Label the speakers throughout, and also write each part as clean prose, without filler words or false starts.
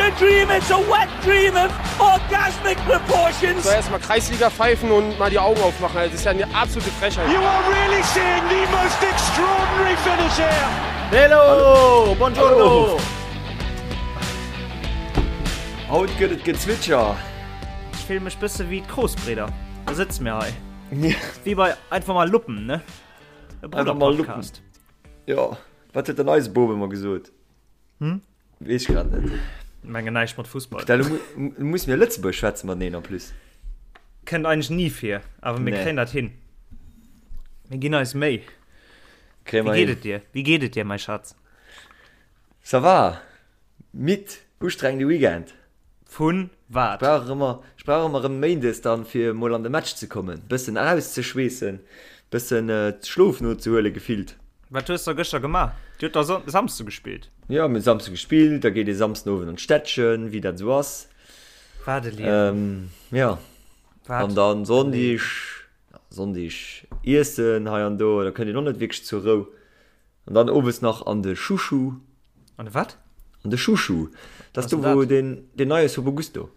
Speaker 1: a dream, it's a wet dream of orgasmic proportions.
Speaker 2: So erstmal Kreisliga pfeifen und mal die Augen aufmachen. Das ist ja eine absolute Frechheit.
Speaker 1: You are really seeing the most extraordinary finish here.
Speaker 3: Hello, buongiorno.
Speaker 4: Haut gëtt et Gezwitscher.
Speaker 3: Ech fille mech bësse wéi d'Kroosbridder. Da sëtze mir hei. Wéi bei Einfach mal Luppen, ne? E
Speaker 4: Einfach mal Luppen.
Speaker 3: Brudder-Podcast.
Speaker 4: Jo, wat huet denn eise Boob ëmmer gesot?
Speaker 3: Hm?
Speaker 4: Weess ech grad net.
Speaker 3: Mengen näischt mat Fussball.
Speaker 4: Da muss mir Lëtzebuerg schwätze mateneen en plus.
Speaker 3: Kënnt eigentlech ni vir, awer mir
Speaker 4: Nee.
Speaker 3: kréien dat hin. Mir ginn eis Méi.
Speaker 4: Kréie
Speaker 3: Wéi
Speaker 4: mer
Speaker 3: geet
Speaker 4: hin.
Speaker 3: et dir? Wéi geet et dir, mäi Schatz?
Speaker 4: Ça va. Midd, ustrengende Weekend.
Speaker 3: Vun wat?
Speaker 4: Ech brauch ëmmer, ech brauch ëmmer erëm Méindes dann fir mol an de Match ze kommen, bëssen erauszeschweessen, bëssen Schlof nozehuelen gefillt.
Speaker 3: Wat hues der gëschter gemaach? Dir hutt da Samsde gespillt?
Speaker 4: Jo, mir hu Samsde gespillt, da geet ee Samsden Owend an d'Städtchen, wéi dat esou ass.
Speaker 3: Wat e Liewen.
Speaker 4: Jo,
Speaker 3: Wat
Speaker 4: an dann
Speaker 3: e Liewen.
Speaker 4: Sonndeg, Sonndeg iessen hei an do, da kënnt een och net wierklech zur Rou. An dann owes nach an de Chouchou.
Speaker 3: An de wat?
Speaker 4: An de Chouchou. Dat ass
Speaker 3: Was
Speaker 4: do,
Speaker 3: ass dat?
Speaker 4: wou deen, deen neie Sobo Gusto.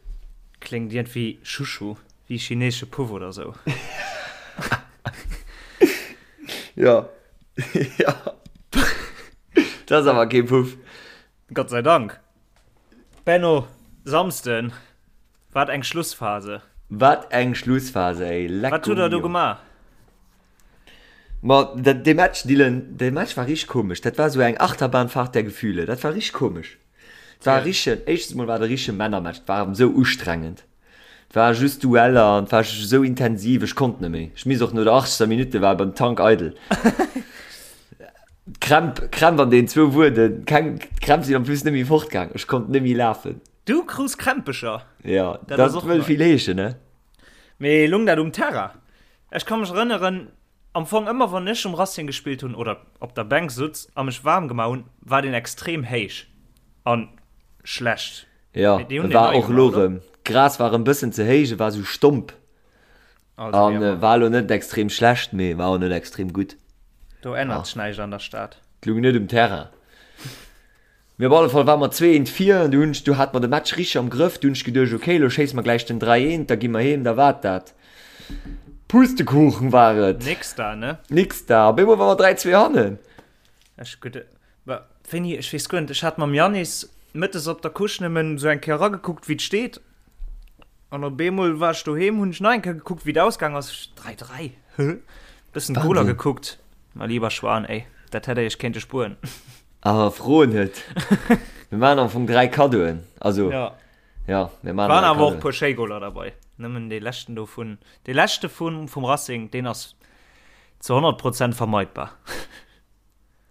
Speaker 3: Kléngt iergendwéi Chouchou, wéi chineesche Puff oder sou.
Speaker 4: Ja. Ja. Dat ass awer kee Puff.
Speaker 3: Gott sei Dank. Benno, Samsden, wat eng Schlussphase.
Speaker 4: Wat eng Schlussphase, ey.
Speaker 3: Wat
Speaker 4: Lecco
Speaker 3: hutt der do
Speaker 4: mio.
Speaker 3: gemaach?
Speaker 4: Ma dat, dee Match, Dylan, dee Match war richteg komesch. Dat war sou eng Achterbahnfahrt der Gefühle. Dat war richteg komesch. Et war e richtegen, éischtens mol war et e richtege Männermatch. Et war esou ustrengend. Et war just Dueller an et war esou intensiv, ech konnt net méi. Ech misst och no der 80. Minutte war beim Tank eidel. D'Krämp, Krämp an deenen zwou Wueden, keng, d'Krämp sinn en plus net méi fortgaang. Ech konnt net méi lafen.
Speaker 3: Du krus Krämpecher?
Speaker 4: Ja,
Speaker 3: Dat ass
Speaker 4: dat
Speaker 3: och
Speaker 4: wëll
Speaker 3: nei.
Speaker 4: vill heeschen, ne?
Speaker 3: Mee lung dat um Terrain? Ech ka mech erënneren, am Fong ëmmer wann ech um Racing gespillt hunn oder op der Bänk sutz a mech waarm gemaach hunn, war deen extrem héich an schlecht.
Speaker 4: Jo,
Speaker 3: Mee déi hunn
Speaker 4: e
Speaker 3: deen
Speaker 4: war
Speaker 3: nei
Speaker 4: och elo
Speaker 3: gemaach, oder?
Speaker 4: erëm, d'Gras war erëm bëssen ze héich, e war sou stomp
Speaker 3: Also wéi
Speaker 4: an
Speaker 3: ëmmer.
Speaker 4: war elo net extrem schlecht, mee war och net extrem gutt.
Speaker 3: Do ännert sech näischt an der Stad.
Speaker 4: Et lung net um Terrain. Mee op alle Fall ware mer 2 eent vir an du hunn ech, du hate mer de Match richteg am Grëff, du hunn ech geduecht, ok, elo schéisse mer gläich den 3 eent, da gi mer heem, da war et dat. Pustekuchen war et.
Speaker 3: Nix da, ne?
Speaker 4: Nix da. Op eemol ware mer 3 2 hannen.
Speaker 3: Ech gutt, wa, wéini, ech weess guer net, ech hat mam Yannis mëttes op der Couche nëmmen esou eng Kéier eragekuckt, wéi et steet. An op eemol war ech doheem, hunn ech nach eng Kéier gekuckt, wéi et ausgaang ass, 3 3, hä? Bëssen d'Goler
Speaker 4: Wahnsinn.
Speaker 3: gekuckt. Ma lieber Schwan, ey, dat hätt der iech kéinte spueren.
Speaker 4: Awer fro net. Mir maachen am Fong 3 Kaddoen. Also,
Speaker 3: Ja.
Speaker 4: ja, mir maachen
Speaker 3: Waren
Speaker 4: 3
Speaker 3: awer och
Speaker 4: Kaddoen.
Speaker 3: puer schéi Goler derbei. Nëmmen dee leschten do vun, dee leschte vun, vum Racing, deen ass zu 100 Prozent vermeidbar.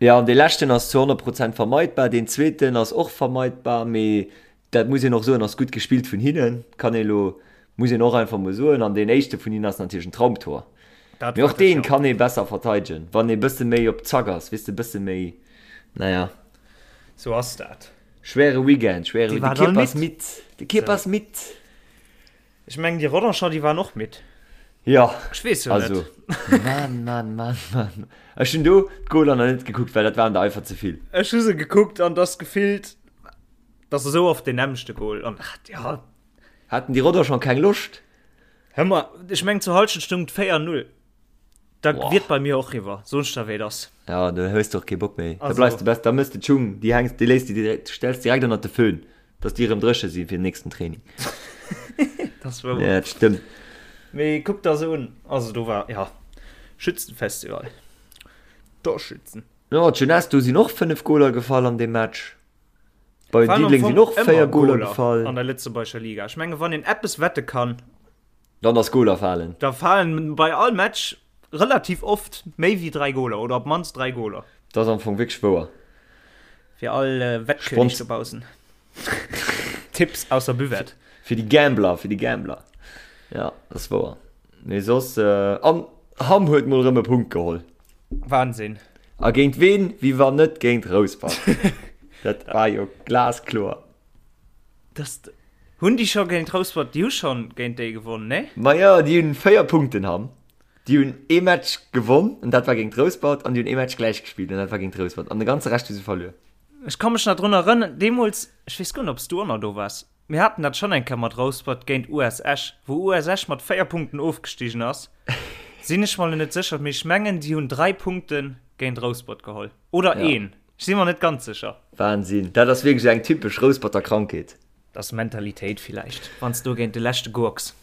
Speaker 4: Ja, an dee leschten ass zu 100 Prozent vermeidbar. Deen zweeten ass och vermeidbar, mee dat muss een och soen, ass gutt gespillt vun hinnen. Kann ee lo, muss een och einfach mol soen. An deen éischte vun hinnen ass natierlech en Traumtor.
Speaker 3: Dat
Speaker 4: Mee
Speaker 3: war
Speaker 4: och deen
Speaker 3: sécher.
Speaker 4: kann ee besser verteidegen, wann ee bësse méi op Zack ass, weess de, bësse méi, naja.
Speaker 3: Sou ass dat.
Speaker 4: Schwere Weekend, schwere
Speaker 3: Déi
Speaker 4: Weekend. De
Speaker 3: waren all
Speaker 4: Kierper ass
Speaker 3: midd.
Speaker 4: midd, de Kierper ass midd.
Speaker 3: Ech mengen déi Rodancher, déi waren och midd.
Speaker 4: Jo,
Speaker 3: Ech weess jo
Speaker 4: also,
Speaker 3: net.
Speaker 4: Mann, Mann, Mann, Mann. Ech hunn do d'Goaler nach net gekuckt, well dat waren der einfach ze vill.
Speaker 3: Ech hu se gekuckt an dass gefillt, dass esou oft deen nämmlechte Goal an, ach, ja.
Speaker 4: Haten déi Rodancher keng Loscht?
Speaker 3: Hör mal, ech mengen zur Halschent stung et 4, 0. Da
Speaker 4: Boah.
Speaker 3: wier et bei mir och riwwer, soen ech der wéi et ass.
Speaker 4: Ja, da hues de och kee Bock méi. Da
Speaker 3: Also.
Speaker 4: bleifs de best, da mëss de d'Schung, déi hängs, déi léiss de direkt, stells direkt ënnert de Föhn, dass déi erëm dréche si fir den nächsten Training.
Speaker 3: Dat ass wouer.
Speaker 4: Ja, dat stëmmt.
Speaker 3: Mee kuck der se un, also do war, ja, Schützenfestival. Torschützen.
Speaker 4: Jo, d'Jeunesse, do sinn och 5 Goler gefall an deem Match. Bei
Speaker 3: Waren am
Speaker 4: Diddeleng
Speaker 3: Fong
Speaker 4: sinn och
Speaker 3: ëmmer
Speaker 4: 4 Goler
Speaker 3: Goler
Speaker 4: gefall.
Speaker 3: an der lëtzebuergescher Liga. Ech menge wann een eppes wette kann,
Speaker 4: Dann ass Goler falen.
Speaker 3: da falen bei all Match relativ oft méi wéi 3 Goler oder op d'mannst 3 Goler.
Speaker 4: Dat ass am Fong wierklech wouer.
Speaker 3: Fir all Wettkönig
Speaker 4: Spons
Speaker 3: dobaussen. Tipps aus der Buvette.
Speaker 4: Fir déi Gambler, fir déi Gambler. Ja, dat ass wouer. Mee soss, an Hamm huet mol erëm e Punkt geholl.
Speaker 3: Wahnsinn.
Speaker 4: A géint ween, wéi wann net géint Rouspert. Dat war jo glaskloer.
Speaker 3: Das, hunn déi scho géint Rouspert, déi hu schonn géint déi gewonnen, nee?
Speaker 4: Majo, déi hunn 4 Punkten, Hamm. Déi hunn ee Match gewonn, an dat war géint Rouspert, an déi hunn ee Match gläich gespillt, an dat war géint Rouspert. An de ganze Rescht hu se verluer.
Speaker 3: Ech ka mech nach drun erënneren, deemools, ech weess guer net, ob s du och nach do waars, mir haten dat schonn eng Kéier mat Rouspert géint US Esch, wou US Esch mat 4 Punkten ofgestigen ass, sinn ech mer elo net sécher, mee ech mengen, déi hunn 3 Punkte géint Rouspert geholl. Oder
Speaker 4: Ja.
Speaker 3: een. Ech si mer net ganz sécher.
Speaker 4: Wahnsinn, dat ass wierklech eng typesch Rousperter Krankheet.
Speaker 3: Dat ass Mentalitéit villäicht, wann s du géint de leschte gurks.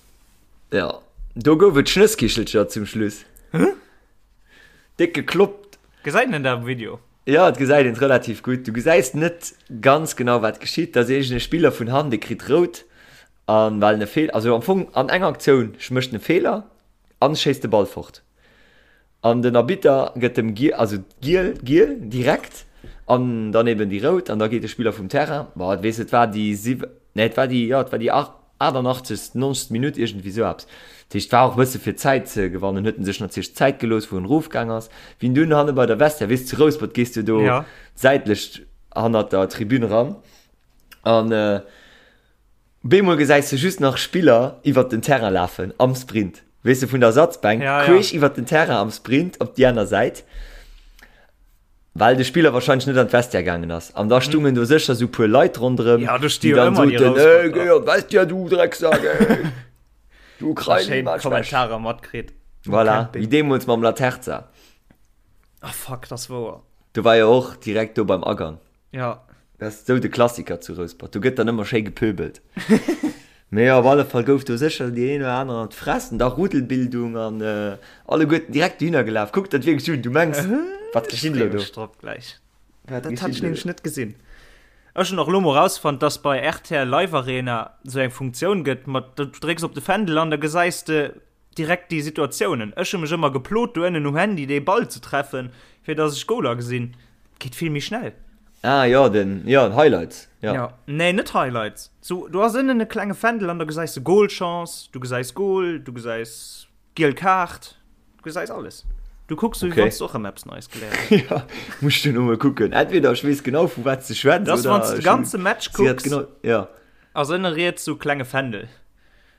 Speaker 4: Jo, do gouf et Schnësskichelcher zum Schluss. Déck gekloppt.
Speaker 3: Gesäit een dat am Video?
Speaker 4: Jo, et gesäit een et relativ gutt. Du gesäis net ganz genau wat geschitt. Da ass iergend e Spiller vun hannen, dee kritt rout an well en e Feeler, also am Fong an enger Aktioun mécht en e Feeler an schéisst de Ball fort. An den Arbitter gëtt dem giel, also giel, giel direkt an dann eben déi rout an da geet de Spiller vum Terrain. Bon, et weess, et war déi siw, nee et war déi, jo et war déi 88., 90. Minutt, iergendwéi esou eppes. Dat heescht, et war och e bësse fir Zäit ze gewannen, huet en sech natierlech Zäit gelooss, wou en erofgaang ass. Wéi en dunn hanne bei der Vestiaire, weess, zu Rouspert gees du do
Speaker 3: Ja.
Speaker 4: säitlech hannert der Tribün eran an bemol gesäis de just nach Spiller iwwert den Terrain lafen am Sprint, weess de, vun der Ersatzbänk
Speaker 3: Ja, ja.
Speaker 4: queesch iwwert den Terrain am Sprint op déi aner Säit. Well de Spiller wahrscheinlech net an d'Vestiaire gaangen ass. An da stungen do sécher sou puer Leit ronderëm,
Speaker 3: Ja, do sti
Speaker 4: déi
Speaker 3: jo
Speaker 4: dann
Speaker 3: ëmmer déi
Speaker 4: soten,
Speaker 3: Rousperter.
Speaker 4: Ey, géi an d'Vestiaire, du Drecksak, ey! Du
Speaker 3: Da
Speaker 4: Krein,
Speaker 3: schéin
Speaker 4: Matsch,
Speaker 3: Kommentarer matkritt.
Speaker 4: Voilà,
Speaker 3: Kennt déi.
Speaker 4: wéi deemools mam Laterza.
Speaker 3: Ah fuck, dat ass wouer.
Speaker 4: Do war jo och direkt do beim Agang.
Speaker 3: Ja.
Speaker 4: Dat ass sou de Klassiker zu Rouspert. Do gëtt dann ëmmer schéi gepöbelt. Mee op alle Fall gouf do sécher déi een oder aner an d'Fress an da Rudelbildung an alleguerten direkt dohinner gelaf. Kuck dat wierklech un, du mengs, wat geschitt elo do?
Speaker 3: Ech drop gläich.
Speaker 4: Wat
Speaker 3: Dat
Speaker 4: geschitt
Speaker 3: hat ech
Speaker 4: elo
Speaker 3: nämlech
Speaker 4: do?
Speaker 3: net gesinn. Ech hunn och elo mol rausfonnt, dass bei rtl Live Arena sou eng Funktioun gëtt mat, du drécks op de Fändel an da gesäis de direkt déi Situatiounen. Ech hu mech ëmmer geplot do ënnen um Handy dee Ball ze treffen, fir dass ech Goler gesinn. Geet vill méi schnell.
Speaker 4: Ah jo, den, jo, Highlights, jo.
Speaker 3: Ja, nee, net Highlights. Sou, do ass ënnen e klenge Fändel an da gesäis de Goalchance, du gesäis Goal, du gesäis giel Kaart, du gesäis alles. Du kucks sou, wéi
Speaker 4: Okay.
Speaker 3: wann s du och erëm eppes Neies geléiert häss.
Speaker 4: Ja, muss ech duerno mol kucken. Entweder ech weess genau vu wat s de schwätz,
Speaker 3: Dat ass,
Speaker 4: oder
Speaker 3: wann s de
Speaker 4: ech
Speaker 3: ganze Match
Speaker 4: si hat
Speaker 3: kucks,
Speaker 4: genau, ja.
Speaker 3: ass ënne riets sou klenge Fändel.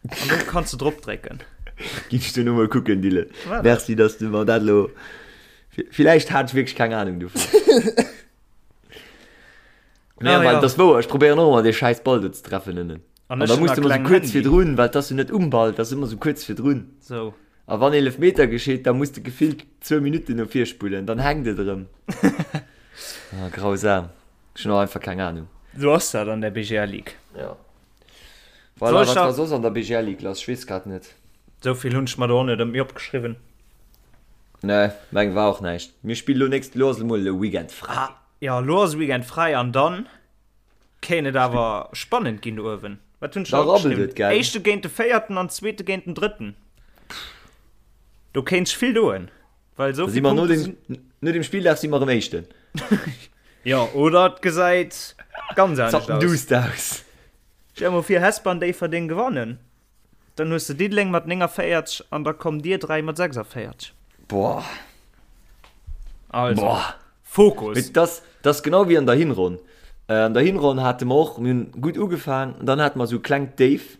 Speaker 3: An do kanns du drop drécken.
Speaker 4: Ginn ech duerno mol kucken, Dylan.
Speaker 3: Voilà.
Speaker 4: Merci, dass du mer dat elo. Villäicht hat ech wierklech keng Ahnung dovun. Nee,
Speaker 3: Ah,
Speaker 4: well
Speaker 3: ja.
Speaker 4: dat ass wouer, ech probéieren och ëmmer dee schäiss Ball do ze treffen ënnen.
Speaker 3: An
Speaker 4: An
Speaker 3: ech
Speaker 4: da
Speaker 3: hunn
Speaker 4: muss
Speaker 3: e
Speaker 4: de ëmmer sou
Speaker 3: klengen
Speaker 4: kuerz
Speaker 3: Handy.
Speaker 4: virdrun, well 't ass jo net um Ball, 't ass ëmmer sou kuerz virdrun.
Speaker 3: Sou.
Speaker 4: A wann Eelefmeter geschitt, da muss de gefillt zwou Minutten no vir spullen, dann hänkt et erëm. Ah, grausam. Ech hunn och einfach keng Ahnung.
Speaker 3: Sou ass dat an der BGL Ligue.
Speaker 4: Ja. Voilà,
Speaker 3: Soll
Speaker 4: wat
Speaker 3: ech
Speaker 4: war soss an der BGL Ligue lass? Ech weess grad net.
Speaker 3: Sou vill hunn ech mer do och net ëmmi opgeschriwwen.
Speaker 4: Nee, meng war och näischt. Mir spillen elo nächst, elo ass emol e Weekend fräi.
Speaker 3: Ah, jo, elo ass e Weekend fräi an dann kéint et awer spannend ginn do uewen. Wat hunn ech
Speaker 4: Da
Speaker 3: da
Speaker 4: rabbelt
Speaker 3: opgeschriwwen?
Speaker 4: et, gell?
Speaker 3: Éischte géint de Véierten an Zweete géint den Drëtten. Do kéint sech vill doen, well esou
Speaker 4: Da si
Speaker 3: vill
Speaker 4: mer no
Speaker 3: Punkte
Speaker 4: dem,
Speaker 3: sinn.
Speaker 4: no dem Spilldag si mer erëm Éischten.
Speaker 3: Jo, oder et gesäit ganz anescht aus.
Speaker 4: Zappenduster aus.
Speaker 3: Stell mol vir Hesper an Déifferdeng gewannen, dann hues de Diddeleng mat 49 an da kommt dir 3 mat 46.
Speaker 4: Boah.
Speaker 3: Also,
Speaker 4: Boah.
Speaker 3: Fokus!
Speaker 4: Mee das, das genau wéi an der Hinronn. An der Hinronn hate mer och, mir hunn gutt ugefaang, an dann hate mer esou e klengt Déif,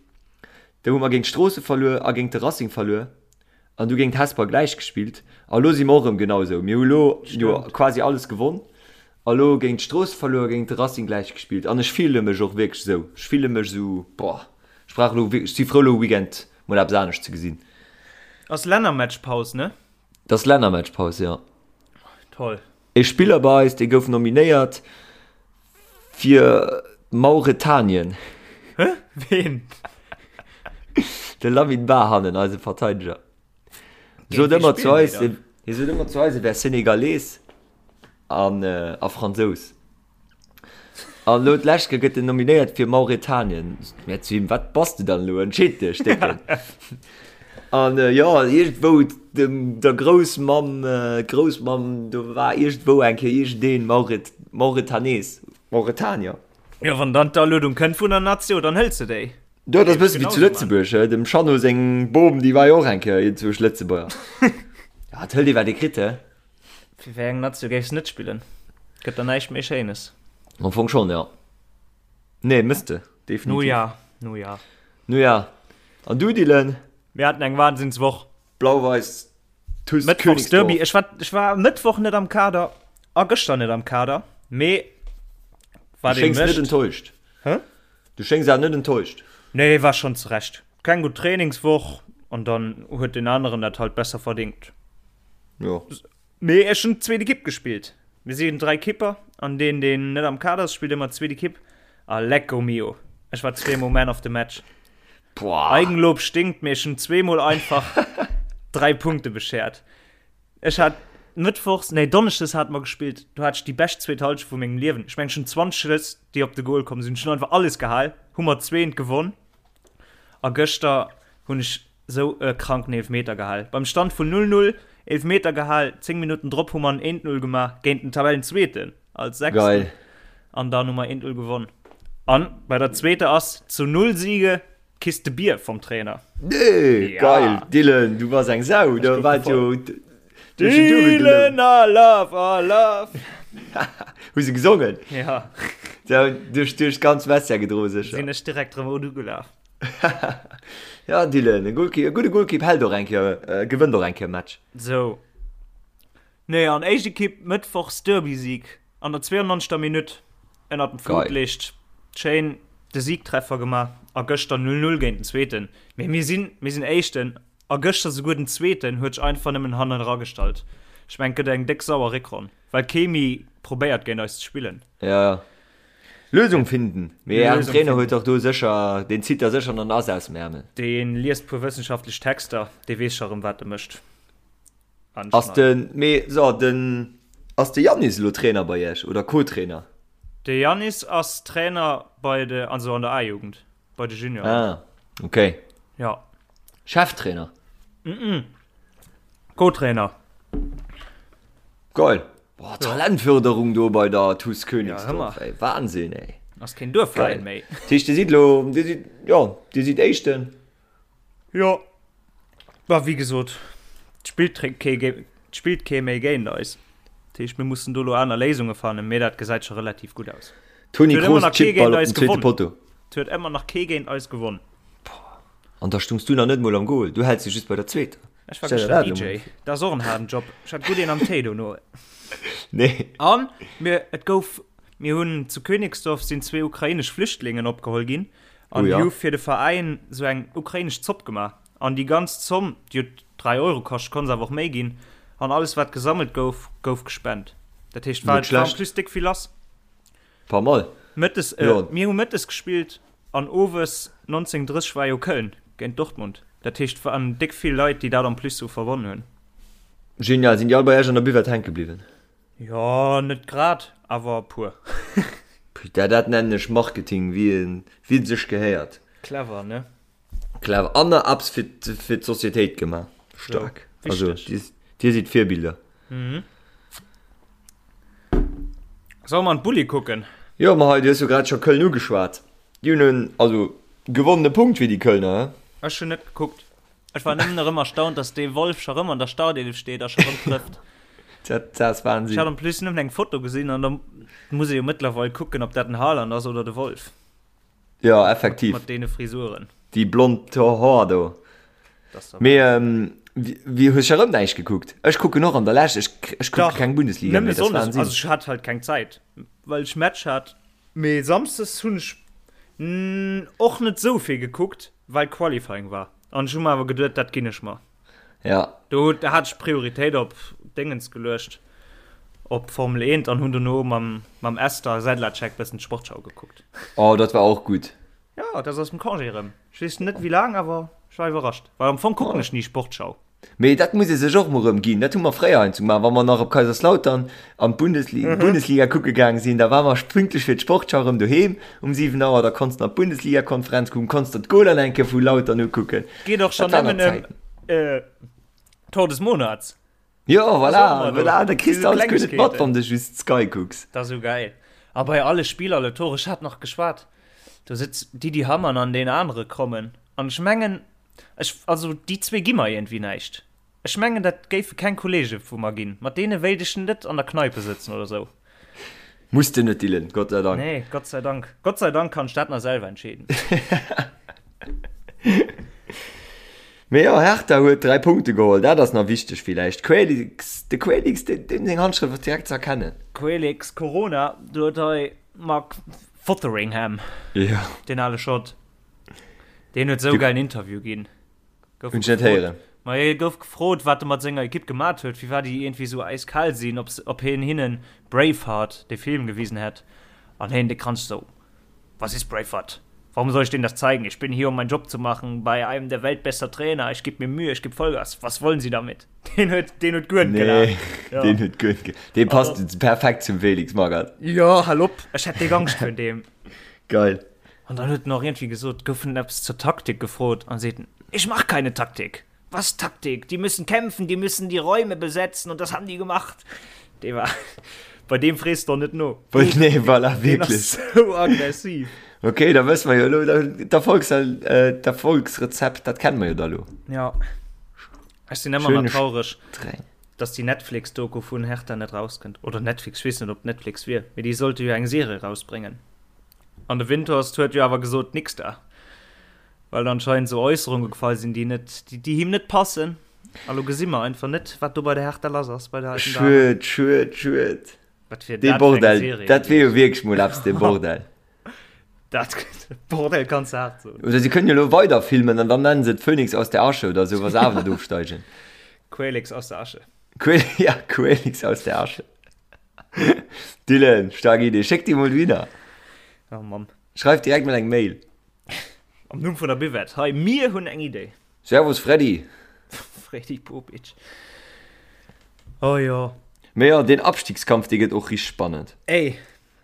Speaker 4: do hu mer géint Stroossen verluer a géint de Racing verluer. An du géint Hesper gläich gespillt. A lo si mer och erëm genau esou. Mir hu lo jo quasi alles gewonn. A lo géint Strooss verluer, géint de Racing gläich gespillt. An ech fille mech och wierklech esou. Ech fille mech esou, boah, ech brauch elo wierklech, ech si frou elo e Weekend mol eppes anescht ze gesinn.
Speaker 3: Ass Lännermatchpaus, ne?
Speaker 4: Et ass Lännermatchpaus, jo.
Speaker 3: Toll.
Speaker 4: E Spiller bei eis, dee gouf nominéiert fir Mauretanien.
Speaker 3: Hä? Ween?
Speaker 4: De Lamine Bah hannen, eise Verteideger. Sot ëmmer zu eis, hie sot ëmmer zu eis, e wär Senegalees an a Fransous. An elo d'lescht Kéier gëtt en nominéiert fir Mauretanien. Mir zu him, wat bass de dann elo? Entscheed dech, Décken. An jo, iergendwou dem der Groussmamm, d'Groussmamm, do war iergendwou eng Kéier iergendeen Mauret, Mauretanees, Mauretanier.
Speaker 3: Jo, wann dann d'Aluedung kënnt vun der Natio, dann hëls de déi.
Speaker 4: Jo, dat ass e bësse wéi zu Lëtzebuerg, he, dem Jeannot seng Bom, déi war jo och eng Kéier iergendwousch Lëtzebuerger. Ja, et hëlt ee wat ee kritt, he.
Speaker 3: Fir wéi eng Natio géifs de net spillen? Gëtt der näischt méi Schéines.
Speaker 4: Am Fong schonn, jo. Nee, mëss de, definitiv.
Speaker 3: Nu ja, nu ja.
Speaker 4: Nu ja. An du, Dylan?
Speaker 3: Mir haten eng Wahnsinnswoch.
Speaker 4: Blau-Weiß TuS
Speaker 3: Mëttwochsderby.
Speaker 4: Königsdorf.
Speaker 3: Ech war, ech war Mëttwoch net am Kader a gëschter net am Kader, mee.
Speaker 4: Du
Speaker 3: Wat ee
Speaker 4: schéngs net
Speaker 3: mécht.
Speaker 4: enttäuscht.
Speaker 3: Hä?
Speaker 4: Du schéngs awer net enttäuscht.
Speaker 3: Nee, war schonn zurecht. Keng gutt Trainingswoch an dann huet deen aneren dat halt besser verdingt.
Speaker 4: Jo.
Speaker 3: Mee ech hunn d'zweet Ekipp gespillt. Mir sinn 3 Kipper an deen deen net am Kader ass spillt ëmmer d'zweet Ekipp a lecko mio, ech war zweemol Man of the Match.
Speaker 4: Boah.
Speaker 3: Eigenlob stinkt, mee ech hunn zweemol einfach 3 Punkte beschert. Ech hat mëttwochs, nee donneschdes hate mer gespillt, do hat ech déi bescht zweet Halschent vu mengem Liewen. Ech mengen ech hunn 20 Schëss déi op de Goal komm sinn, ech hunn einfach alles gehal, hu mer zweent gewonn a gëschter hunn ech sou e kranken Eelfmeter gehal. Beim Stand vun 0, 0, Eelfmeter gehal, 10 Minutten drop hu mer en 1, 0 gemaach géint den Tabellenzweeten als Sechsten.
Speaker 4: Geil.
Speaker 3: An dann hu mer 1, 0 gewonn. An bei der zweeter ass zu 0 Siege Kiste Bier vom Trainer.
Speaker 4: Nee,
Speaker 3: Ja.
Speaker 4: geil, Dylan, du bass eng Sau, da
Speaker 3: gouf
Speaker 4: war jo du hues jo duebel
Speaker 3: Dylan,
Speaker 4: gelount.
Speaker 3: I love, I love.
Speaker 4: Hu se gesongen?
Speaker 3: Ja.
Speaker 4: Ja, duerch duerch d'ganz Vestiaire gedroe sécher.
Speaker 3: Sinn ech direkt rëm ugelaf.
Speaker 4: Ja, Dylan, e Goalkeeper, e gudde Goalkeep hält och eng Kéier, gewënnt och eng Kéier e Match.
Speaker 3: Sou. Nee, an éischt Ekipp mëttwochs Derby-Sieg an der 92. Minutt ënnert dem Flutlicht. Schéin de Siegtreffer gemaach a gëschter 0, 0 géint den Zweeten. Mee mir sinn, mir sinn Éischten a gëschter souguer den Zweeten huet sech einfach nëmmen hannen eragestallt. Ech mengen, et gëtt eng déck sauer Réckronn, well kee méi probéiert géint eis ze spillen.
Speaker 4: Ja. Lösung finden. Mee ären
Speaker 3: Lösung
Speaker 4: Trainer
Speaker 3: finden.
Speaker 4: huet dach do sécher, deen zitt da sécher en Ass aus dem Ärmel.
Speaker 3: Dee liest puer wëssenschaftlech Texter, dee weess scho rëm wat e mécht.
Speaker 4: Ass de, mee so, den, ass de Yannis elo Trainer bei iech oder Co-Trainer?
Speaker 3: De Yannis ass Trainer bei de, also an der A-Jugend, bei de Junioren.
Speaker 4: Ah, okay.
Speaker 3: Ja.
Speaker 4: Cheftrainer?
Speaker 3: Co-Trainer.
Speaker 4: Geil. Boah, Talentförderung do bei der TuS
Speaker 3: Ja,
Speaker 4: Königsdorf,
Speaker 3: hëmmer.
Speaker 4: ey. Wahnsinn, ey.
Speaker 3: Ass keen Duerfveräin
Speaker 4: Geil.
Speaker 3: méi.
Speaker 4: Dat heescht, Dir sidd elo, Dir sidd, jo, Dir sidd Éischten.
Speaker 3: Jo. Bah, wéi gesot, et spillt kee, et spillt kee méi géint eis. Dat heescht, mir mussen do elo aner Léisunge fannen, mee dat gesäit scho relativ gutt aus.
Speaker 4: Toni
Speaker 3: Et huet ëmmer
Speaker 4: Kroos
Speaker 3: nach kee
Speaker 4: chippt Ball
Speaker 3: géint
Speaker 4: op
Speaker 3: eis
Speaker 4: den zweete
Speaker 3: gewonn.
Speaker 4: Potto.
Speaker 3: Et huet ëmmer nach kee géint eis gewonn.
Speaker 4: An da stungs du nach net mol am Goal, du häls jo just bei der zweeter.
Speaker 3: Ech war
Speaker 4: Stell der
Speaker 3: gëschter
Speaker 4: dat elo
Speaker 3: DJ.
Speaker 4: mol vir.
Speaker 3: Dat ass och en haarden Job. Ech hat gutt een am Téi dono.
Speaker 4: Nee.
Speaker 3: An mir, et gouf, mir hunn zu Königsdorf sinn zwee ukrainesch Flüchtlingen opgeholl ginn an
Speaker 4: Oh
Speaker 3: déi
Speaker 4: ja.
Speaker 3: hu fir de Veräin sou eng ukrainesch Zopp gemaach. An déi ganz Zomm, déi huet 3 Euro kascht, konnt se awer och méi ginn, an alles wat gesammelt gouf, gouf gespent. Dat heescht, war,
Speaker 4: Net
Speaker 3: war en
Speaker 4: schlecht.
Speaker 3: plus déck vill lass.
Speaker 4: Pas mal.
Speaker 3: Mëttes, äh,
Speaker 4: Jo.
Speaker 3: mir hu mëttes gespillt an owes 19:30 war jo Köln géint Dortmund. Dat heescht, waren déck vill Leit, déi dat en plus sou verbonn hunn.
Speaker 4: Genial. Sinn déi all bei iech an der Buvette hänke bliwwen?
Speaker 3: Jo, net grad, awer e puer.
Speaker 4: Putain, dat nennen ech Marketing, wéi en, wéi et sech gehéiert.
Speaker 3: Clever, ne?
Speaker 4: Clever. An nach eppes fir, fir d'Societéit gemaach. Staark.
Speaker 3: Jo,
Speaker 4: Also,
Speaker 3: wichteg.
Speaker 4: dir, dir sidd Virbilder.
Speaker 3: Solle mer an d'Bulli kucken?
Speaker 4: Jo, ma hei, du hues jo grad scho Köln ugeschwat. Déi hunn en, also, gewonnene Punkt fir déi Kölner, he?
Speaker 3: Ech hunn net gekuckt. Ech war nëmmen erëm erstaunt, dass dee Wolf scho rëm an der Startelf steet a scho rëm trëfft.
Speaker 4: Dat, dat ass
Speaker 3: Ech hat
Speaker 4: Wahnsinn.
Speaker 3: en plus nëmmen eng Foto gesinn an da muss ee jo mëttlerweil kucken, ob dat den Haaland ass oder de Wolf.
Speaker 4: Jo, effektiv.
Speaker 3: Mat deene Frisuren.
Speaker 4: Déi blond Hoer do.
Speaker 3: Das ist
Speaker 4: Mee, ähm, wie, hues scho rëm näischt gekuckt? Ech kucken och an der Lescht, ech, ech kucke
Speaker 3: Dach,
Speaker 4: keng Bundesliga
Speaker 3: nëmme
Speaker 4: méi, dat ass
Speaker 3: Sonndes,
Speaker 4: Wahnsinn.
Speaker 3: also ech hat halt keng Zäit, well ech Match hat. Mee Samsdes hunn ech och net sou vill gekuckt, well Qualifying war. An ech hu mer awer geduet, dat ginn ech mer.
Speaker 4: Ja.
Speaker 3: Do hat ech Prioritéit op Déngens geluecht, op Formel 1 an hunn dono mam, mam Esther Sedlacek bëssen d'Sportschau gekuckt.
Speaker 4: Oh, dat war och gutt.
Speaker 3: Jo, dat ass aus dem Congé erëm. Ech weess net wéi laang, awer ech war iwwerrascht, well am Fong kucken ech ni Sportschau.
Speaker 4: Mee dat muss ee sech och mol erëm ginn. Dat hu mer fréier heiansdo gemaach, wa mer nach op Kaiserslautern an d'Bundesliga, Bundesliga kucke gaang sinn, da war mer pünktlech fir d'Sportschau erëm doheem um 7 Auer. Da konns de nach d'Bundesligakonferenz kucken, konns der d'Goler eng Kéier vu Lautern ukucken.
Speaker 3: Geet och schonn
Speaker 4: Dat waren
Speaker 3: nëmmen
Speaker 4: nach
Speaker 3: ëm
Speaker 4: Zäiten.
Speaker 3: Tor des Monats.
Speaker 4: Jo, voilà,
Speaker 3: ëmmer do.
Speaker 4: voilà, da kriss de
Speaker 3: Déi
Speaker 4: alles guer net mat,
Speaker 3: Klengegkeeten.
Speaker 4: wann de just Sky kucks.
Speaker 3: Dat ass esou gäil. A bei alle Spiller, alle Tore, ech hat nach geschwat, do sëtzt d'Didi Hamann an deen anere Krommen an ech mengen, Ech, also déi zwee gi mer iergendwéi näischt. Ech mengen, dat géife keng Kollege vu mer ginn. Mat deene wéilt ech net an der Kneipe sëtzen oder sou.
Speaker 4: Muss de net, Dylan, Gott sei Dank.
Speaker 3: Nee, Gott sei Dank. Gott sei Dank kann ech dat nach selwer entscheeden.
Speaker 4: Mee jo, Hertha huet 3 Punkte geholl, dat ass nach wichteg villäicht. Quailix, de Quailix, deem seng Handschrëft ass direkt ze erkennen.
Speaker 3: Quailix, Corona, do huet hei. Mark Fotheringham.
Speaker 4: Ja.
Speaker 3: Deen ale Schott. Deen huet sou gäilen Interview ginn.
Speaker 4: Gouf Hunn ech net héieren.
Speaker 3: Ma hie gouf gefrot, wat e mat senger Ekipp gemat huet, firwat déi iergendwéi sou äiskal sinn, ob, ob hien hinnen Braveheart, dee Film, gewisen hätt. An hien, de Kranz, sou, Was ist Braveheart? Warum soll ich denen das zeigen? Ich bin hier, um meinen Job zu machen, bei einem der weltbester Trainer. Ich geb mir Mühe, ich geb Vollgas. Was wollen Sie damit? Deen huet, deen huet guer net
Speaker 4: Nee,
Speaker 3: gelaacht. Ja.
Speaker 4: deen huet guer net ge-, dee passt perfekt zum Felix Magath.
Speaker 3: Jo, hal op, ech hätt déck Angscht virun deem.
Speaker 4: Geil.
Speaker 3: An dann huet en och iergendwéi gesot, gouf en eppes zur Taktik gefrot an seet en, Ich mach keine Taktik. Was Taktik? Die müssen kämpfen, die müssen die Räume besetzen und das haben die gemacht. Dee war, bei deem frees de och net no.
Speaker 4: Nee, voilà,
Speaker 3: Deen ass
Speaker 4: wierklech.
Speaker 3: sou aggressiv.
Speaker 4: Okay, da wësse mer jo elo, d'Erfolgs-, d'Erfolgsrezept, dat kenne mer jo da elo.
Speaker 3: Ja. Ech sinn ëmmer nach
Speaker 4: Schöne
Speaker 3: traureg,
Speaker 4: Streng.
Speaker 3: dass déi Netflix-Doku vun Hertha net rauskënnt. Oder Netflix, ech weess net, ob Netflix wier, mee déi sollte jo eng Serie rausbréngen. An de Windhorst huet jo awer gesot, nix da. Well anscheinend sou Äusserunge gefall sinn, déi net, déi him net passen. A lo gesi mer einfach net, wat do bei der Hertha lass ass, bei der alten
Speaker 4: Dame. Schued, schued, schued.
Speaker 3: Wat wier
Speaker 4: Dee
Speaker 3: dat fir eng
Speaker 4: Bordell,
Speaker 3: Serie
Speaker 4: dat wier jo
Speaker 3: gewiescht?
Speaker 4: wierklech mol eppes, dee Bordell.
Speaker 3: Dat, Bordell kanns de haart soen.
Speaker 4: Oder si kënnen jo elo weider filmen an dann nennen se et Phönix aus der Asche oder sou, wa se awer net ofsteigen.
Speaker 3: Quälix aus der Asche.
Speaker 4: Quäl, ja, Quälix aus der Asche. Dylan, stark Idee. Schéck déi mol dohinner.
Speaker 3: Oh Mann.
Speaker 4: Schreif direkt mol eng Mail.
Speaker 3: Am Numm vun der Buvette, hei, mir hunn eng Idee.
Speaker 4: Servus Freddy.
Speaker 3: Freddy Bobic. Oh jo.
Speaker 4: Mee jo, deen Abstiegskampf, dee gëtt och richteg spannend.
Speaker 3: Ey,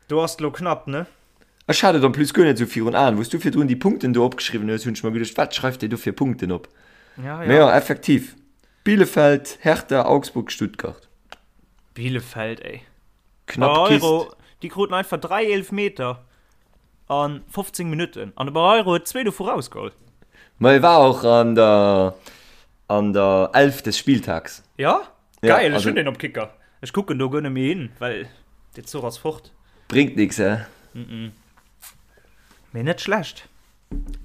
Speaker 3: do ass et lo knapp, ne?
Speaker 4: Ech hat et en plus guer net esou virun Aen. Wou s du virdrun déi Punkten do opgeschriwwen hues, hunn ech mer geduecht, wat schreift dee do fir Punkten op?
Speaker 3: Ja,
Speaker 4: Mee
Speaker 3: ja.
Speaker 4: jo, effektiv, Bielefeld, Hertha, Augsburg, Stuttgart.
Speaker 3: Bielefeld, ey.
Speaker 4: Knapp Kist.
Speaker 3: Barreiro, déi kruten einfach 3 Eelfmeter a 15 Minutten an de Barreiro huet zwee dovu rausgeholl.
Speaker 4: Ma e war och an der an der 11 des Spieltags.
Speaker 3: Ja?
Speaker 4: Ja,
Speaker 3: Geil, ech
Speaker 4: also
Speaker 3: hunn deen op Kicker. Ech kucken do guer net méi hin, well dee Zuch ass fort.
Speaker 4: Bréngt nix, he?
Speaker 3: Mee net schlecht.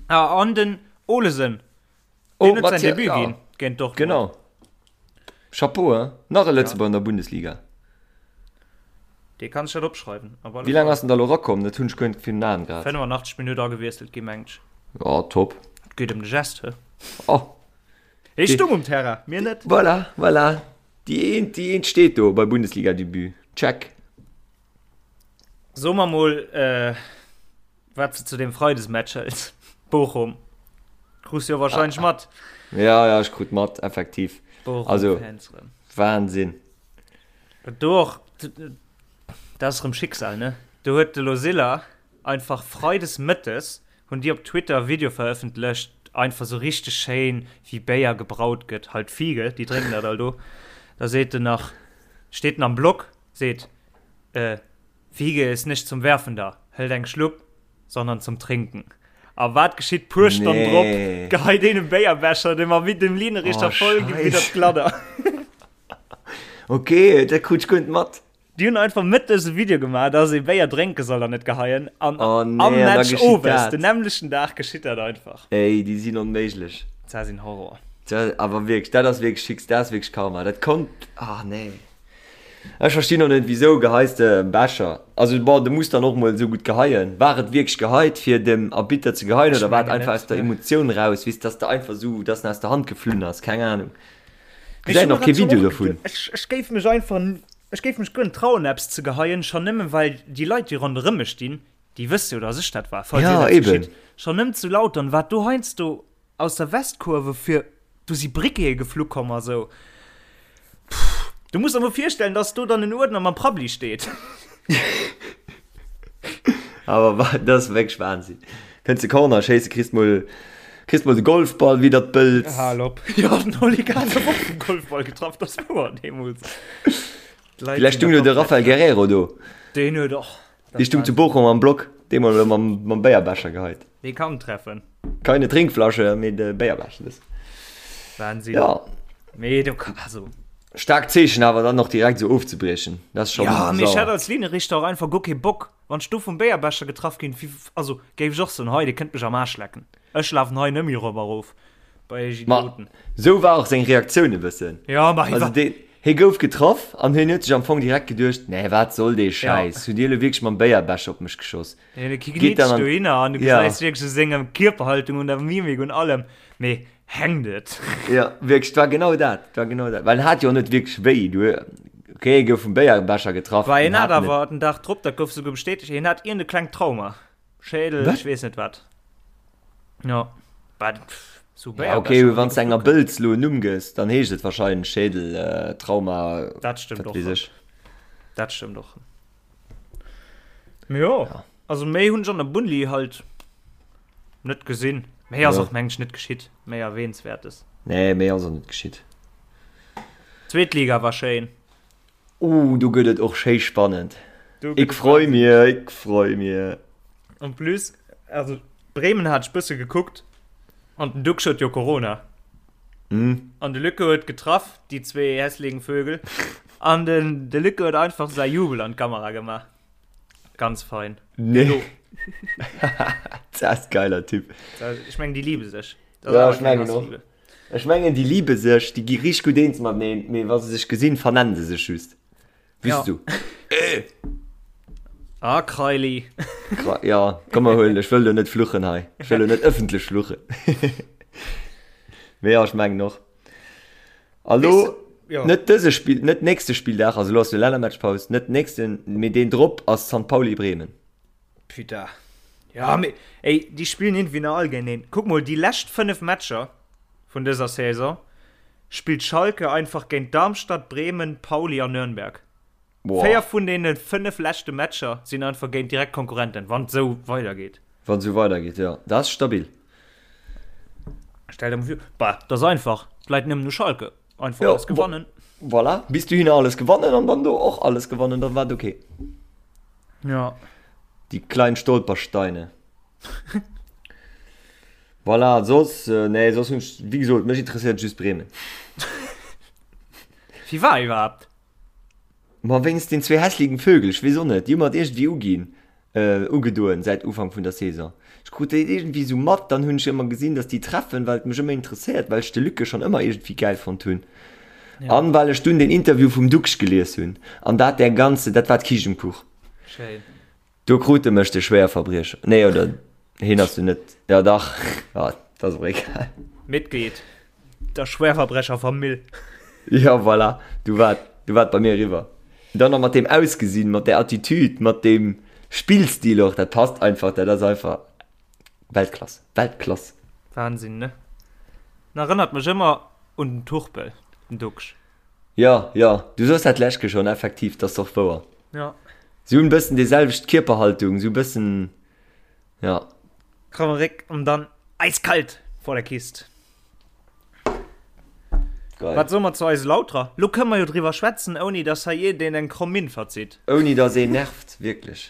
Speaker 3: Ah, an den Olesen,
Speaker 4: Oh,
Speaker 3: Deen huet säin
Speaker 4: Mathieu,
Speaker 3: Debut
Speaker 4: ja.
Speaker 3: ginn géint Dortmund.
Speaker 4: Genau. Chapeau, hein? Nach e Lëtzebuerger an der Bundesliga.
Speaker 3: Dee kann sech dat opschreiwen. Op alle
Speaker 4: Wéi laang
Speaker 3: Fall.
Speaker 4: ass en da lo rakomm? Dat hunn ech guer net virun Aen grad.
Speaker 3: 85 Minutt agewiesselt gi mengt ech.
Speaker 4: Ja, top.
Speaker 3: Et geet ëm de Gest, he?
Speaker 4: Oh.
Speaker 3: Hie stung um Terrain, mir net.
Speaker 4: Voilà, voilà. Déi eent, déi eent steet do bei Bundesliga-Debut. Check.
Speaker 3: So mer mol, äh, Wat s de zu deem Freidesmatch hëls, Bochum, krus jo wahrscheinlech mat.
Speaker 4: Ja, ja, ech krut mat, effektiv. Also,
Speaker 3: Bochum-Fans rëm.
Speaker 4: Wahnsinn.
Speaker 3: Do och, dat ass rëm Schicksal, ne? Do huet de Losilla einfach freides mëttes, hunn déi op Twitter e Video verëffentlecht, einfach sou richteg schéin, wéi Béier gebraut gëtt, halt Fiege, déi drénken dat all do. Da seet en nach, steet en am Blog, seet, äh, Fiege ist nicht zum Werfen da, hëlt eng Schlupp, sondern zum Trinken. A wat geschitt puer Stonnen drop?
Speaker 4: Nee.
Speaker 3: Geheit een e Béierbecher, dee mam dem Linienrichter
Speaker 4: Oh,
Speaker 3: voll widder
Speaker 4: Scheiss.
Speaker 3: d'Gladder.
Speaker 4: Okay, dat krut ech guer net mat.
Speaker 3: Déi hunn einfach mëttes e Video gemaach, dass ee Béier drénke soll an net geheien. An
Speaker 4: Oh nee,
Speaker 3: am
Speaker 4: an da
Speaker 3: Match
Speaker 4: geschitt
Speaker 3: owes,
Speaker 4: dat.
Speaker 3: den nämmlechten Dag geschitt dat einfach.
Speaker 4: Ey, déi sinn onméiglech.
Speaker 3: Dat sinn Horror.
Speaker 4: Dat, awer wierklech, dat ass wierklech Schicksal, dat ass wierklech Karma. Dat konnt, ah nee. Ech verstinn och net wisou geheis de Becher? Also bon de muss dann och mol esou gutt geheien. War et wierklech geheit fir dem Arbitter ze geheien
Speaker 3: Ech
Speaker 4: oder war et
Speaker 3: mengen
Speaker 4: einfach
Speaker 3: net,
Speaker 4: aus der
Speaker 3: ne.
Speaker 4: Emotioun raus, weess dass de einfach esou dass en aus der Hand geflunn ass, keng Ahnung.
Speaker 3: Mee ech
Speaker 4: Gesäit
Speaker 3: hu
Speaker 4: och
Speaker 3: mer
Speaker 4: kee
Speaker 3: dat jo
Speaker 4: Video
Speaker 3: och
Speaker 4: dovun.
Speaker 3: geduet. Ech ech géif mech einfach ech géif mech guer net trauen eppes ze geheien, schonn nëmmen well déi Leit déi ronderëm mech stinn, déi wësse jo dass ech dat war, falls
Speaker 4: Ja
Speaker 3: iergendeppes
Speaker 4: eben.
Speaker 3: geschitt. Schonn nëmmen zu Lautern wat do heiansdo Aus der Westkurve fir do si Briquete geflu komm a sou. Pff, du muss der mol virstellen, dass do dann en Uerdner mam Prabbli steet.
Speaker 4: Awer wa, dat ass wierklech Wahnsinn. Kënns de Corner schéisse, kriss mol, kriss mol de Golfball widder d'Bëlz.
Speaker 3: Hal op. Jo, den Oli Kahn gouf och vum Golfball getraff, dat ass wouer, deemools. D'Leit
Speaker 4: Villäicht
Speaker 3: sinn
Speaker 4: stung
Speaker 3: da
Speaker 4: do de
Speaker 3: komplett
Speaker 4: Raphael Guerreiro do.
Speaker 3: Deen huet och.
Speaker 4: Dee stung zu Bochum am Block, dee mol mam, mam Béierbecher geheit.
Speaker 3: Dee kann treffen.
Speaker 4: Keine Trinkflasche, mee de Béierbecher. Das.
Speaker 3: Wahnsinn.
Speaker 4: Ja.
Speaker 3: Mee do kann, also.
Speaker 4: Staarkt Zeechen awer dann och direkt esou ofzebriechen. Dat ass schon
Speaker 3: Ja, mee ech
Speaker 4: sauer.
Speaker 3: hätt als Linienrichter och einfach guer kee Bock, wann ech do vum Béierbecher getraff ginn, wéi, also géif ech och soen, hei, dir kënnt mech am Aarsch lecken. Ech lafen hei nëmme erop a rof bei iech
Speaker 4: Ma
Speaker 3: Idioten.
Speaker 4: esou war och seng Reaktioun e bëssen.
Speaker 3: Ja, ma hie
Speaker 4: Also
Speaker 3: war,
Speaker 4: deen. Hie gouf getraff an hien huet sech am Fong direkt geduecht, Nee, wat soll dee Schäiss? Hutt Dir elo wierklech mam Béierbecher op mech geschoss?
Speaker 3: Hien Geet dann an, dohinner an du gesäis wierklech u senger Kierperhaltung, un der Mimik, un allem, mee hänkt et?
Speaker 4: Ja, wierklech, et war genau dat, et war genau dat. Well en hat jo och net wierklech wéi, du, okay, hie gouf vum Béierbecher getraff.
Speaker 3: Bah, hien hat awer den Dag drop, dat gouf souguer bestätegt, hien hat iergend e klengt Trauma. Schädel, ech weess net wat. Ja, bah, pff,
Speaker 4: so ja, okay, wann du enger Bëlz lo en Numm gëss, dann heescht et wahrscheinlech Schädel, äh, Trauma.
Speaker 3: Dat stëmmt och. Weess Dat stëmmt och. Jo, ja. Also méi hunn ech an der Bunli halt net gesinn. Méi ass ja. och mengen ech net geschitt, méi erwähnenswertes.
Speaker 4: Nee, méi ass och net geschitt.
Speaker 3: Zweet Liga war schéin.
Speaker 4: Uh, do gëtt et och schéi spannend. Ik freu mir, ik freu mir.
Speaker 3: En plus, also Bremen hat ech bësse gekuckt an den Duxch huet jo Corona.
Speaker 4: Mm.
Speaker 3: An de Lücke huet getraff, déi zwee hässligen Vögel. An den de Lücke huet einfach säi Jubel an d'Kamera gemaach. Ganz fein.
Speaker 4: Nee. Dat ass geiler Typ.
Speaker 3: Ech meng, déi liebe sech.
Speaker 4: Ja, ech mengen och. Ech mengen déi liebe sech, déi gi richteg gutt eens mateneen, mee wa se sech gesinn, vernennen se sech just. Weess du?
Speaker 3: Äh! Ah, Kraili.
Speaker 4: Kra ja, komm mer huelen, ech wëll lo net fluchen hei. Ech wëll lo net ëffentlech fluchen. Mee ja, ech mengen och. A lo, ja. net dëse Spill, net nächste Spilldag, also lo ass jo Lännermatchpaus, net nächsten, mee deen drop ass St. Pauli Bremen.
Speaker 3: Putain. Ja, mee, ey, déi spillen iergendwéi nach all géinteneen. Kuck mol, déi lescht 5 Matcher vun dëser Saison spillt Schalke einfach géint Darmstadt, Bremen, Pauli an Nürnberg. Boah. 4 vun deene 5 leschte Matcher sinn einfach géint direkt Konkurrenten, wann et esou weidergeet.
Speaker 4: Wann et esou weidergeet, jo. Dat ass stabil.
Speaker 3: Stell der mol vir, bah, dat ass einfach, et läit nëmmen u Schalke. Einfach
Speaker 4: ja,
Speaker 3: alles gewannen.
Speaker 4: Voilà, bis dohinner alles gewannen an dann do och alles gewannen, dann war et okay.
Speaker 3: Ja.
Speaker 4: Die kleinen Stolpersteine. voilà, soss, äh, nee, soss hunn ech, wéi gesot, mech interesséiert just Bremen.
Speaker 3: Wie war iwwerhaapt?
Speaker 4: Ma wéinst den zwee hässligen Vögel, ech weess och net, déi hu mer et iergendwéi uginn. Ugedoen säit Ufank vun der Saison. Ech krut déi iergendwéi esou mat, dann hunn ech ëmmer gesinn, dass déi treffen, well et mech ëmmer interesséiert, well ech de Luc schonn ëmmer iergendwéi gäil fonnt hunn an well ech dunn den Interview vum Duxch gelies hunn an dat der ganze, dat war d'Kiischt um Kuch.
Speaker 3: Schéin.
Speaker 4: Do krut e mech, de Schwéierverbriecher. Nee, oder hien ass jo net, ja dach, ja, dat ass och egal.
Speaker 3: Mitglied der Schwerverbrecherfamill.
Speaker 4: Ja, voilà, du war, du war bei mir eriwwer. Dann nach mat deem Ausgesinn, mat där Attitude, mat deem Spillstil och, dat passt einfach, dat ass einfach Weltklass, Weltklass.
Speaker 3: Wahnsinn, ne? En erënnert mech ëmmer un den Turpel, den Duxch.
Speaker 4: Ja, ja, du soos dat d'lescht Keer schonn, effektiv, dat ass och wouer.
Speaker 3: Ja.
Speaker 4: Si hunn e bëssen déi selwecht Kierperhaltung, sou e bëssen, ja.
Speaker 3: Kromme Réck an dann eiskalt vor der Kist.
Speaker 4: Geil.
Speaker 3: Wat soe mer zu eise Lauterer? Lo kënne mer jo driwwer schwätzen, ouni dass hei iergendeen eng kromm Minn verzitt.
Speaker 4: Ouni dass een nervt, wierklech.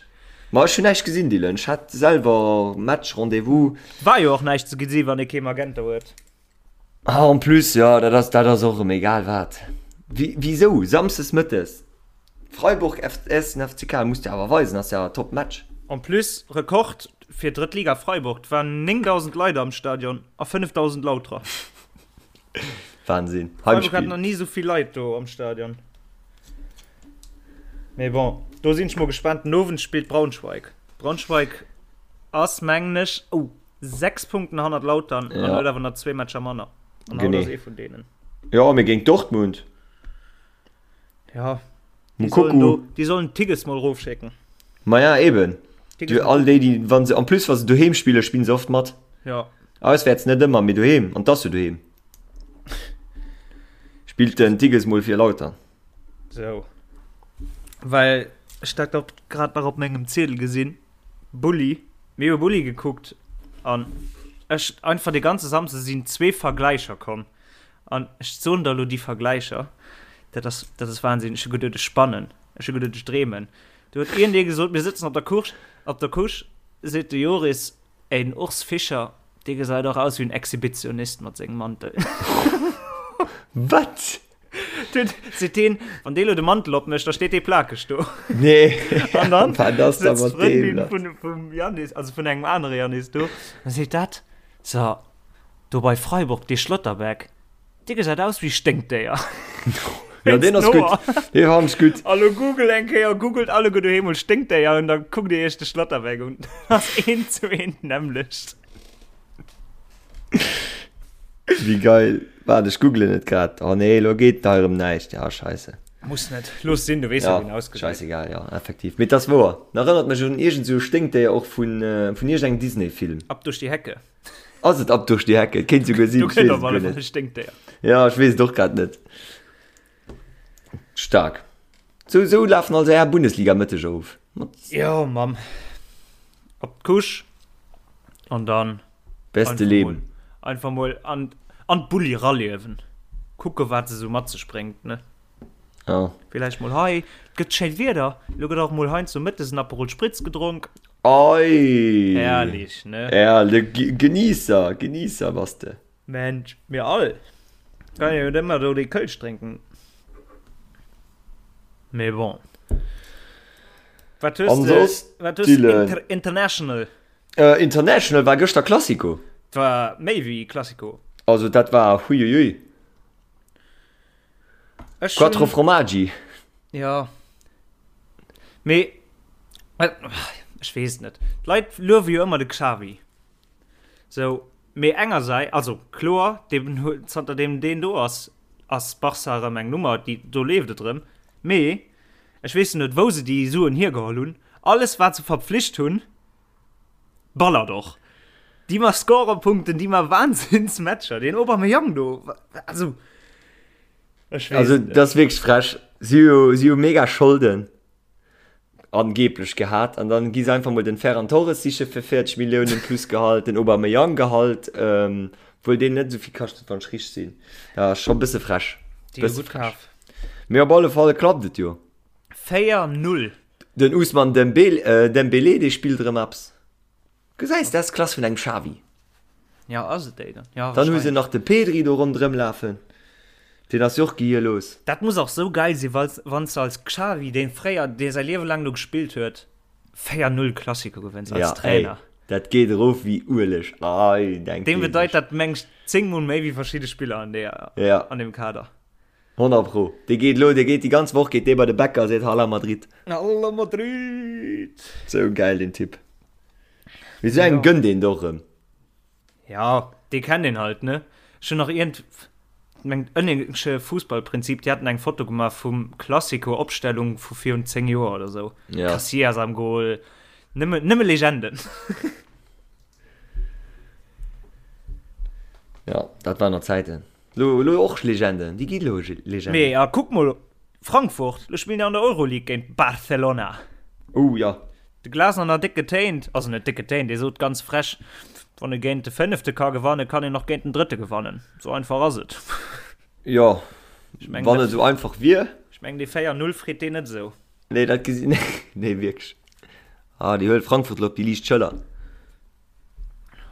Speaker 4: Ma ech hunn näischt gesinn, Dylan. Ech hat selwer Match, Rendez-vous.
Speaker 3: War jo och näischt ze gesi wann ee kee Magenta huet.
Speaker 4: Ah, en plus, jo, dat ass, dat ass och erëm egal wat. Wi, wisou samsdes mëttes? Freiburg vs FCK muss de awer weisen, ass ja top Match.
Speaker 3: En plus, Rekord fir drëtt Liga Freiburg, 't waren 9.000 Leit am Stadion a 5.000 Lauterer.
Speaker 4: Wahnsinn.
Speaker 3: Freiburg hat nach ni esou vill Leit do am Stadion. Mee bon, do sinn ech mol gespaant. Den Owend spillt Braunschweig. Braunschweig ass, mengen ech, oh, 6 Punkten hannert Lautern an huet awer nach zwee Matcher manner. An haut ass ee vun deenen.
Speaker 4: Jo, mee géint Dortmund.
Speaker 3: Ja. Die sollen, do, die sollen Tigges mal rofschécken.
Speaker 4: Maja eben. Du, all déi, déi, wann se, en plus wa se doheem spillen, spillen se oft mat.
Speaker 3: Ja.
Speaker 4: Auswäerts net ëmmer, mee doheem, an 't ass jo doheem. Spillt den Tigges mol fir Lautern.
Speaker 3: Sou. Well ech dat och grad nach op mengem Ziedel gesinn. Bulli. Mir hu Bulli gekuckt an ech einfach de ganze Samsde sinn zwee Vergläicher komm. An ech soen der elo déi Vergläicher, dat ass, dat ass Wahnsinn. Ech hu geduet, ech spannen. Ech hu geduet, ech dreemen. Do huet iergendee gesot, mir sëtzen op der Couche, op der Couche, seet de Joris, Ey, den Urs Fischer, dee gesäit och aus wéi en Exhibitionist mat sengem Mantel.
Speaker 4: Wat?
Speaker 3: Duet, seet deen, wann dee lo de Mantel opmécht, da steet dee plakeg do.
Speaker 4: Nee.
Speaker 3: An dann
Speaker 4: Wat ass da
Speaker 3: sëtzt
Speaker 4: mat deem
Speaker 3: d'Frëndin
Speaker 4: lass?
Speaker 3: vun, vum Janis, also vun engem anere Janis do, a seet dat, So, Do bei Freiburg, dee Schlotterbeck, dee gesäit aus wéi Sténkdéier.
Speaker 4: Ja, deen ass gutt. Dee fannen ech gutt.
Speaker 3: A lo google eng Kéier, googelt alleguer doheem mol Sténkdéier an da kuckt dir iech de Schlotterbeck un. Dat ass eent zu eent d'nämmlecht.
Speaker 4: Wéi geil. Waart, ech googlen et grad. Oh nee, lo geet hei erëm näischt. Ja, scheisse.
Speaker 3: Muss net. Looss sinn, du weess jo,
Speaker 4: Ja,
Speaker 3: wéi en ausgesäit.
Speaker 4: scheissegal, ja, effektiv. Mee et ass wouer. En erënnert mech un iergend sou e Sténkdéier och vun, vun iergendengem Disney-Film.
Speaker 3: Ab durch die Hecke.
Speaker 4: Ass et Ab durch die Hecke? Et kéint souguer sinn,
Speaker 3: Do
Speaker 4: ech
Speaker 3: kënnt
Speaker 4: weess
Speaker 3: op
Speaker 4: et
Speaker 3: alle
Speaker 4: guer
Speaker 3: Fall
Speaker 4: net.
Speaker 3: e Sténkdéier.
Speaker 4: Ja, ech weess et och grad net. Stark. Sou, sou lafen also är Bundesliga-Mëtteger of. Mat
Speaker 3: Jo, Mamm. Op d'Couche an dann
Speaker 4: beste
Speaker 3: einfach mol,
Speaker 4: Leben.
Speaker 3: einfach mol an, an d'Bulli raliewen. Kucke wat se sou mat sech bréngt, ne?
Speaker 4: Ja.
Speaker 3: Villäicht mol hei, et gëtt schéint Wieder, lo gëtt och mol heiansdo mëttes en Aperol Spritz gedronk.
Speaker 4: Oi!
Speaker 3: Herrlich, ne?
Speaker 4: Ja, de Genießer, Genießer bass de.
Speaker 3: Mensch, mir all. Kann jo net ëmmer do dee Kölsch drénken. Mee bon. Wat hues
Speaker 4: An
Speaker 3: de,
Speaker 4: soss,
Speaker 3: wat hues de
Speaker 4: Dylan?
Speaker 3: inter international?
Speaker 4: Äh, international war gëschter Classico.
Speaker 3: Et war méi wéi Classico.
Speaker 4: Also dat war huiuiui.
Speaker 3: Ech
Speaker 4: Quattro
Speaker 3: hunn,
Speaker 4: Formaggi.
Speaker 3: ja. Mee, ech weess et net. D'Leit luewe jo ëmmer de Xavi. Sou, mee engersäits, also kloer, deen huet, zanter deem deen do ass, ass Barca erëm eng Nummer, déi, do leeft et erëm. Mee ech weess net, wou se déi Suen hiergeholl hunn. Alles, wat se verpflicht hunn, ballert och. Déi ma Scorerpunkten, déi ma Wahnsinnsmatcher. Deen Aubameyang do, also ech weess
Speaker 4: Also
Speaker 3: et net.
Speaker 4: dat ass wierklech frech. Si hu si hu mega Scholden angeblech gehat an dann gi se einfach mol den Ferran Torres siche fir 40 Milliounen plus Gehalt, den Aubameyang Gehalt, ähm, obwuel deen net esou vill kascht, wann ech richteg sinn. Ja, ass scho bësse frech.
Speaker 3: Déi hu
Speaker 4: Bësse
Speaker 3: gutt
Speaker 4: frech.
Speaker 3: kaf.
Speaker 4: Mee op alle Fall klappt et jo.
Speaker 3: 4, 0.
Speaker 4: Den Ousmane Dembele, äh, Dembélé, dee spillt erëm eppes. Gesäis, dat ass d'Klass vun engem Xavi.
Speaker 3: Ja, ass et déi dann? Ja,
Speaker 4: Dann hu se
Speaker 3: wahrscheinlech.
Speaker 4: nach de Pedri do ronderëm lafen. Deen ass jo och gehierlos.
Speaker 3: Dat muss och sou geil sinn, wa wann s de als Xavi, deen fréier, dee säi Liewe laang do gespillt huet, 4, 0 Klassiker gewënns als
Speaker 4: Ja, ey,
Speaker 3: Trainer.
Speaker 4: dat geet erof wéi Ueleg. Ei, denk
Speaker 3: Deem
Speaker 4: dee
Speaker 3: bedeit
Speaker 4: sech.
Speaker 3: dat, meng ech, 10 mol méi wéi verschidde Spiller an deer,
Speaker 4: Ja.
Speaker 3: an deem Kader.
Speaker 4: 100 pro. Dee geet elo, dee geet déi ganz Woch geet dee bei de Bäcker a seet Hala Madrid.
Speaker 3: Hala Madrid!
Speaker 4: Sou gäil deen Typ. Mee sou engem
Speaker 3: Ja.
Speaker 4: gënnt een et och erëm.
Speaker 3: Ja, dee kennt een halt, ne? Ech hunn nach iergend, mengt ënnengsche Fussballprinzip, déi haten eng Foto gemaach vum Classico-Opstellung vu virun 10 Joer oder sou.
Speaker 4: Ja.
Speaker 3: Casillas am Goal, nëmme, nëmme Legenden.
Speaker 4: Ja, dat waren nach Zäiten. Lo, lo och Legenden, déi gi lo Legenden.
Speaker 3: Mee a kuck mol, Frankfurt, lo spillen déi an der Euroleague géint Barcelona.
Speaker 4: Oh ja.
Speaker 3: De Glasner nach déck getéint, also net déck getéint, dee sot ganz frech, wann e géint de Fënnefte ka gewannen, kann een och géint den Drëtte gewannen. Sou einfach ass et.
Speaker 4: Jo,
Speaker 3: Ech mengen,
Speaker 4: wann et esou einfach wier.
Speaker 3: Ech mengen, dee 4, 0 freet deen net esou.
Speaker 4: Nee, dat gesi, nee, wierklech. Ah, déi huelt Frankfurt lo op déi liicht Schëller.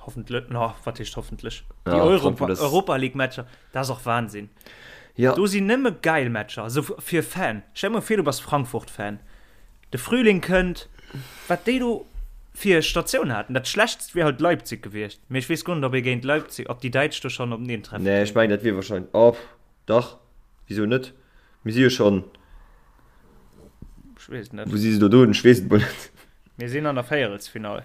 Speaker 3: Hoffentlech, na, wat heescht hoffentlech? Déi
Speaker 4: Ja,
Speaker 3: Europa,
Speaker 4: Frankfurt ass-
Speaker 3: Europa League Matcher, dat ass och Wahnsinn.
Speaker 4: Ja.
Speaker 3: Do sinn nëmme geil Matcher, also fir Fan. Stell dir mol vir, du bass Frankfurt-Fan. De Frühling kënnt, wat déi do fir Statioun haten. Dat schlechtst wier halt Leipzig gewiescht. Mee ech weess guer net, ob ee géint Leipzig, ob déi Däitsch do schonn openeen treffen.
Speaker 4: Nee, ech mengen, dat wier wahrscheinlech, oh, dach, wisou net? Mir si jo schonn,
Speaker 3: Ech weess et net.
Speaker 4: wou si se do doen? Ech weess et mol net.
Speaker 3: Mir sinn an der Véierelsfinall.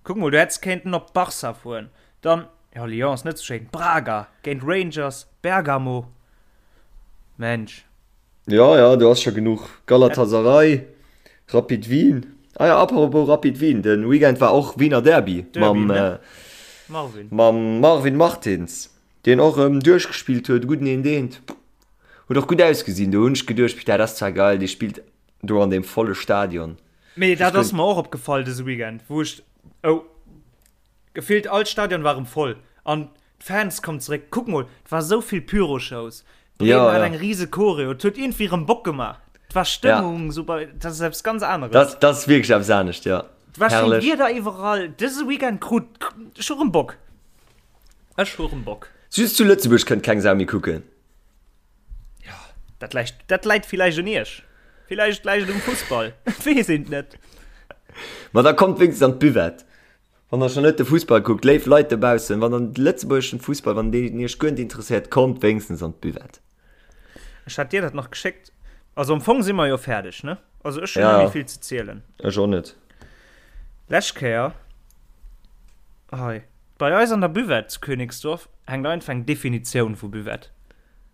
Speaker 3: Kuck mol, du hätts kéinten op Barca fueren, dann, jo Lyon ass net sou schéin, Braga, géint Rangers, Bergamo, Mensch.
Speaker 4: Jo, jo, do ass scho genuch. Galatasaray, Rapid Wien. Ah jo, apropos Rapid Wien, de Weekend war och Wiener Derby mam
Speaker 3: Marvin.
Speaker 4: Mam Marvin Martins, deen och erëm duerchgespillt huet, gudden een deent. Huet och gutt ausgesinn, do hunn ech geduecht, dat ass zwar geil, dee spillt do an deem volle Stadion.
Speaker 3: Mee dat ass mer och opgefall dëse Weekend, wou ech, oh, gefillt all Stadion war erëm voll an d'Fans kommen zeréck. Kuck mol, et war esou vill Pyroshows, Bremen
Speaker 4: Ja,
Speaker 3: hat
Speaker 4: ja.
Speaker 3: eng rise Choreo, et huet iergendwéi erëm Bock gemaach. Et war Stëmmung, sou bei, dat ass eppes ganz aneres.
Speaker 4: Dat, dat ass wierklech eppes anescht, ja.
Speaker 3: Et war schéin
Speaker 4: Herrlech.
Speaker 3: Wieder iwwerall. Dëse Weekend krut, ech hu erëm Bock. Ech hu erëm Bock.
Speaker 4: Just zu Lëtzebuerg kënnt keng Sau méi kucken.
Speaker 3: Ja, dat läit, dat läit villäicht un iech. Villäicht läit et um Fussball. Et weess een et net.
Speaker 4: Ma da kommt wéinstens an d'Buvette. Wann der schon net de Fussball kuckt, léif Leit dobaussen, wann der de lëtzebuergeschen Fussball, wann deen iech guer net interesséiert, kommt wéinstens an d'Buvette.
Speaker 3: Ech hat dir dat nach geschéckt. Also am Fong si mer jo fäerdeg, ne? Also ech hunn net méi vill ze zielen.
Speaker 4: Ech och net.
Speaker 3: Lescht Kéier hei bei eis an der Buvette zu Königsdorf hänkt einfach eng Definitioun vu Buvette.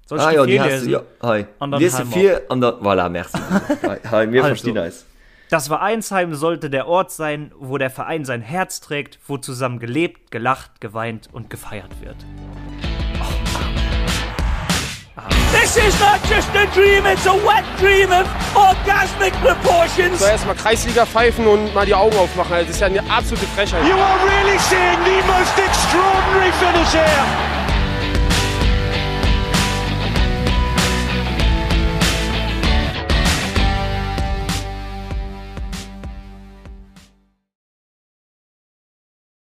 Speaker 4: Soll ech ah, déi virliesen? Ja, hei. An dann Lies se vir an dann voilà, merci. hei, hei, mir also, verstinn eis.
Speaker 3: Das Vereinsheim sollte der Ort sein, wo der Verein sein Herz trägt, wo zusammen gelebt, gelacht, geweint und gefeiert wird.
Speaker 1: This is not just a dream, it's a wet dream of orgasmic proportions.
Speaker 2: So, erstmal Kreisliga pfeifen und mal die Augen aufmachen. Das ist ja eine absolute Frechheit.
Speaker 1: You are really seeing the most extraordinary finish here.